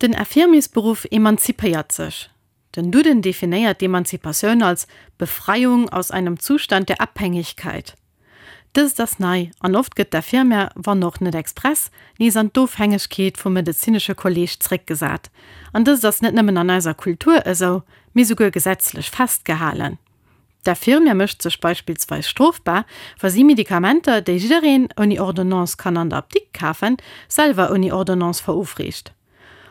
Den Infirmiersberuff emanzipéiert sech. Den Duden definéiert d'Emanzipatioun als Befreiung aus einem Zustand der Abhängigkeit. Dëst ass nei, an oft gëtt d'Infirmière, wann och net express, nees an d'Ofhängegkeet vum medezinesche Kolleeg zréckgesat. An dëst ass net nëmmen an eiser Kultur esou, mee souguer gesetzlech festgehalen. D'Infirmière mécht sech beispillsweis strofbar, wa si Medikamenter, déi jiddereen ouni Ordonnance kann an der Apdikt kafen, selwer ouni Ordonnance verofreecht.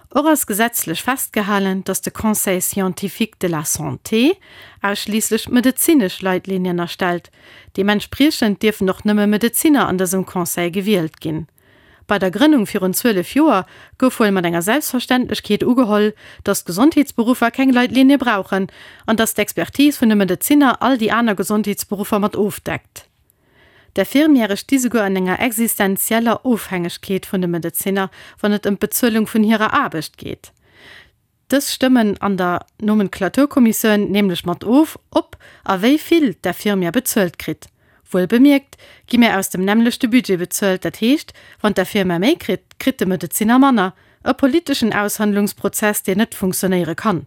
Och ass gesetzlech festgehalen, datt de Conseil scientifique de la santé ausschliisslech medezinesch Leitlinien erstellt. Deementspriechend dierfen och nëmme Medezinner an dësem Conseil gewielt ginn. Bei der Grënnung virun 12 Joer gouf wuel mat enger Selbstverständlechkeet ugeholl, datt d'Gesondheetsberuffer keng Leitlinie brauchen an datt d'Expertise vun de Medezinner all déi aner Gesondheetsberuffer mat ofdeckt. D'Infirmièrë sti souguer an enger existenzieller Ofhängegkeet vun de Medezinner, wann et ëm d'Bezuelung vun hirer Aarbecht geet. Dës stëmmen an der Nomenklaturkommissioun nämlech mat of, ob a wéi vill d'Infirmière bezuelt kritt. Wuel bemierkt gi mir aus dem nämmlechte Budget bezuelt, dat heescht, wann d'Infirmière méi kritt, kritt de Medezinner manner. E politeschen Aushandlungsprozess, deen net funktionéiere kann.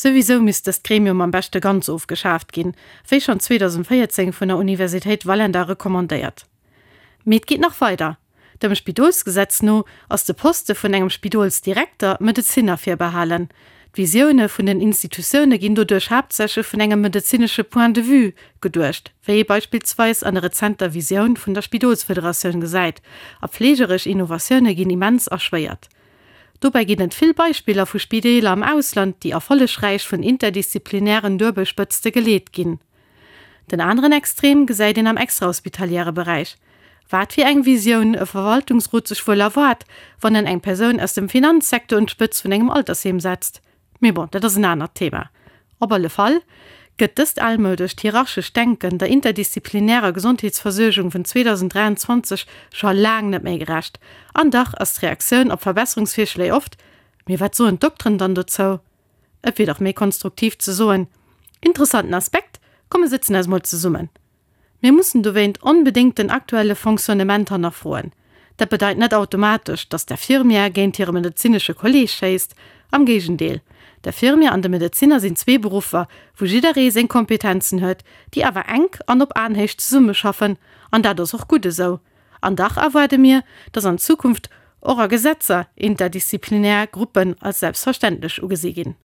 Souwisou misst dëst Gremium am beschte ganz ofgeschaaft ginn, wéi schonn 2014 vun der Universitéit Vallendar recommandéiert. Mee et geet nach weider, Dem Spidolsgesetz no ass de Poste vun engem Spidolsdirekter Medezinner virbehalen. D'Visioune vun den Institutioune ginn doduerch haaptsächlech vun engem medezinesche Point de vue geduecht, wéi ee beispillsweis an der rezenter Visioun vun der Spidolsfederatioun gesäit, a fleegeresch Innovatioune ginn immens erschwéiert. Dobäi ginn et vill Beispiller vu Spideeler am Ausland, déi erfollegräich vun interdisziplinären Duebelspëtzte geleet ginn. Den aneren Extrem gesäit een am extrahospitaliäre Beräich. Wat fir eng Visioun e Verwaltungsrot sech wuel erwaart, wann en eng Persoun aus dem Finanzsecteur un d'Spëtz vun engem Altersheem setzt. Mee bon, dat ass en anert Thema. Op alle Fall gëtt dëst almoudescht hierarchescht Denken der interdisziplinärer Gesondheetsversuergung vun 2023 scho laang net méi gerecht. An dach ass d'Reaktioun op Verbesserungsvirschléi oft, Mee wat soen d'Dokteren dann dozou? Et wier dach méi konstruktiv ze soen, Interessanten Aspekt, komm mir sëtzen eis mol zesummen. Mir mussen dowéint onbedéngt den aktuelle Fonctionnement hannerfroen. Dat bedeit net automatesch, datt d'Infirmière géint hire medezinesche Kolleeg schéisst. Am Géigendeel, d'Infirmière an de Medezinner sinn zwee Beruffer, wou jidderee seng Kompetenzen huet, déi awer enk an op Aenhéicht zesummeschaffen. An dat ass och gutt esou. An dach erwaarde mir, datt an Zukunft och a Gesetzer interdisziplinär Gruppen als selbstverständlech ugesi ginn.